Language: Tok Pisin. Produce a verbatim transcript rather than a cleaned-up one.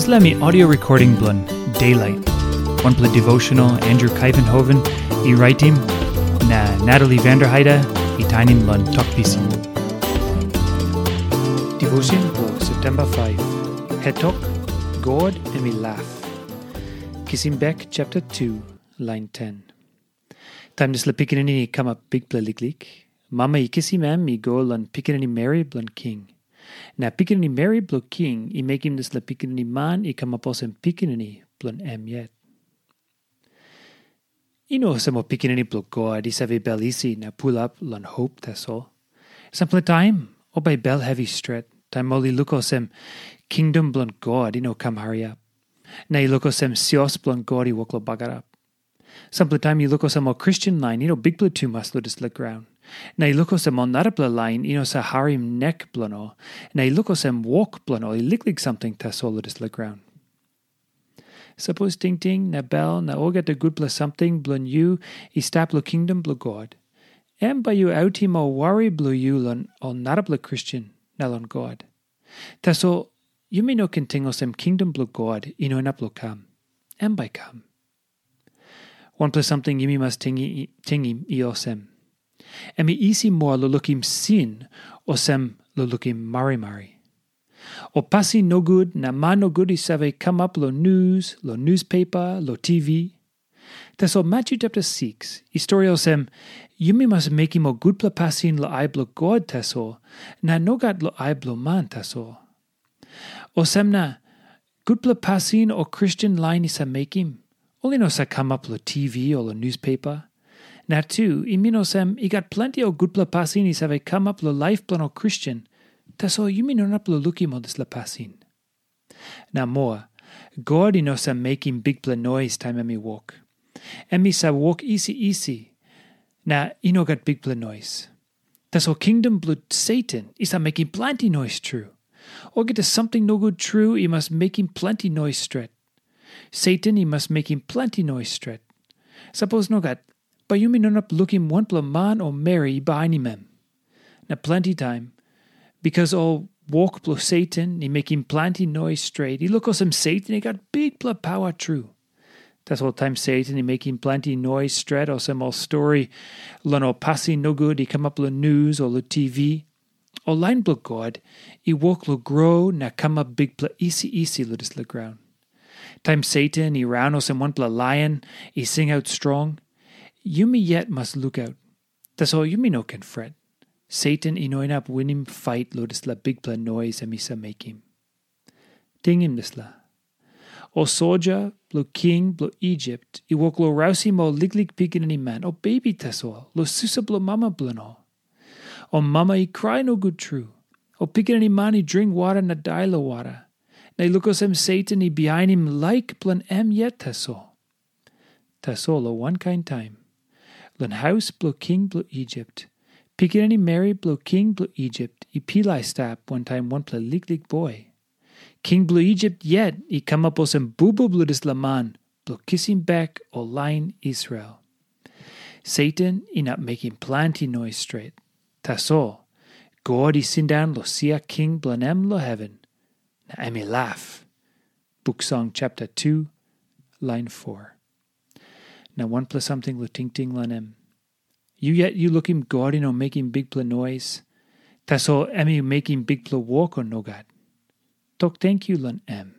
Dispela mi audio recording bilong Daylight. Wanpela devotional Andrew Kaivenhoven i raitim na Natalie Vanderheide i tainim long Tok Pisin. Devotion bilong September five. Hetok, God em i laf. Kisim bek chapter two, line ten. Taim dispela pikinini i kamap bikpela liklik, mama i kisim em i go long pikinini meri bilong king. Na pikinini meri bilong king i mekim dispela pikinini man i kamap olsem pikinini bilong em yet. I no olsem ol pikinini bilong God i save bel isi na pulap long hop tasol. Sampela taim ol bai bel hevi stret, taim ol i luk olsem kingdom bilong God i no kam hariap, na i luk olsem sios bilong God i wok long bagarap. Sampela taim i luk olsem ol Kristen lain i no bikpela tumas long dispela graun. Na i luk olsem ol narapela lain i no sa harim nek bilong ol, na i luk olsem wok bilong ol i liklik samting tasol long dispela graun. Sapos tingting na bel na olgeta gutpela samting bilong yu i stap long kingdom bilong God, em bai yu autim ol wari bilong yu long ol narapela Kristen na long God. Tasol yumi no ken ting olsem kingdom bilong God i no inap long kam. Em bai kam. Wanpela samting yumi mas tingim i olsem, em i isi moa long lukim sin olsem long lukim marimari. Ol pasin nogut na man nogut i save kamap long nus, long nuspepa, long T V. Tasol Matyu chapter six i stori olsem, yumi mas mekim ol gutpela pasin long ai bilong God tasol, na nogat long ai bilong man tasol. Olsem na, gutpela pasin ol Kristen lain i sa mekim, ol i no sa kamap long T V o long nuspepa. Na tu, i min olsem i gat planti ol gutpela pasin i save kamap long laip bilong ol Kristen, tasol yumi no inap long lukim ol dispela pasin. Na moa, God i no sa mekim bikpela nois taim em i wok. Em i sa wok isi isi, na i no gat bikpela nois. Tasol kingdom bilong Satan i sa mekim planti nois tru. Olgeta samting nogut tru i mas mekim planti nois stret. Satan i mas mekim planti nois stret. Sapos nogat, bai yumi no inap lukim wanpela man o meri i bainim em. Na planti taim, bikas ol wok bilong Satan i mekim planti nois stret, i luk olsem Satan i gat bikpela pawa tru. Tasol taim Satan i mekim planti nois stret olsem ol stori long ol pasin nogut i kamap long nus o long T V, ol lain bilong God i wok long gro na kamap bikpela isi isi long dispela graun. Taim Satan i raun olsem wanpela laion i singaut strong, yumi yet mas lukaut. Tasol yumi no ken fret. Satan i no inap winim fait long dispela bikpela nois em i sa mekim. Tingim dispela. Ol soja bilong king bilong Isip i wok long rausim ol liklik pikinini man, ol bebi tasol, long susa bilong mama bilong ol. Ol mama i krai nogut tru. Ol pikinini man i dring wara na dai long wara. Na i luk olsem Satan i bihainim laik bilong em yet tasol. Tasol long wankain taim, long haus bilong king bilong Isip, pikinini meri bilong king bilong Isip i pilai stap wantaim wanpela liklik boi. King bilong Isip yet i kamap olsem bubu bilong dispela man bilong kisim bek ol lain Israel. Satan inap mekim planti nois stret. Tasol, God i sindaun long sia king bilong em long heven, na em i laf. Buk Song chapter two, line four. Na wanpela samting long tingting long em. Yu yet yu lukim God i no mekim bikpela nois, tasol em i mekim bikpela wok o nogat? Tok tenkyu long em.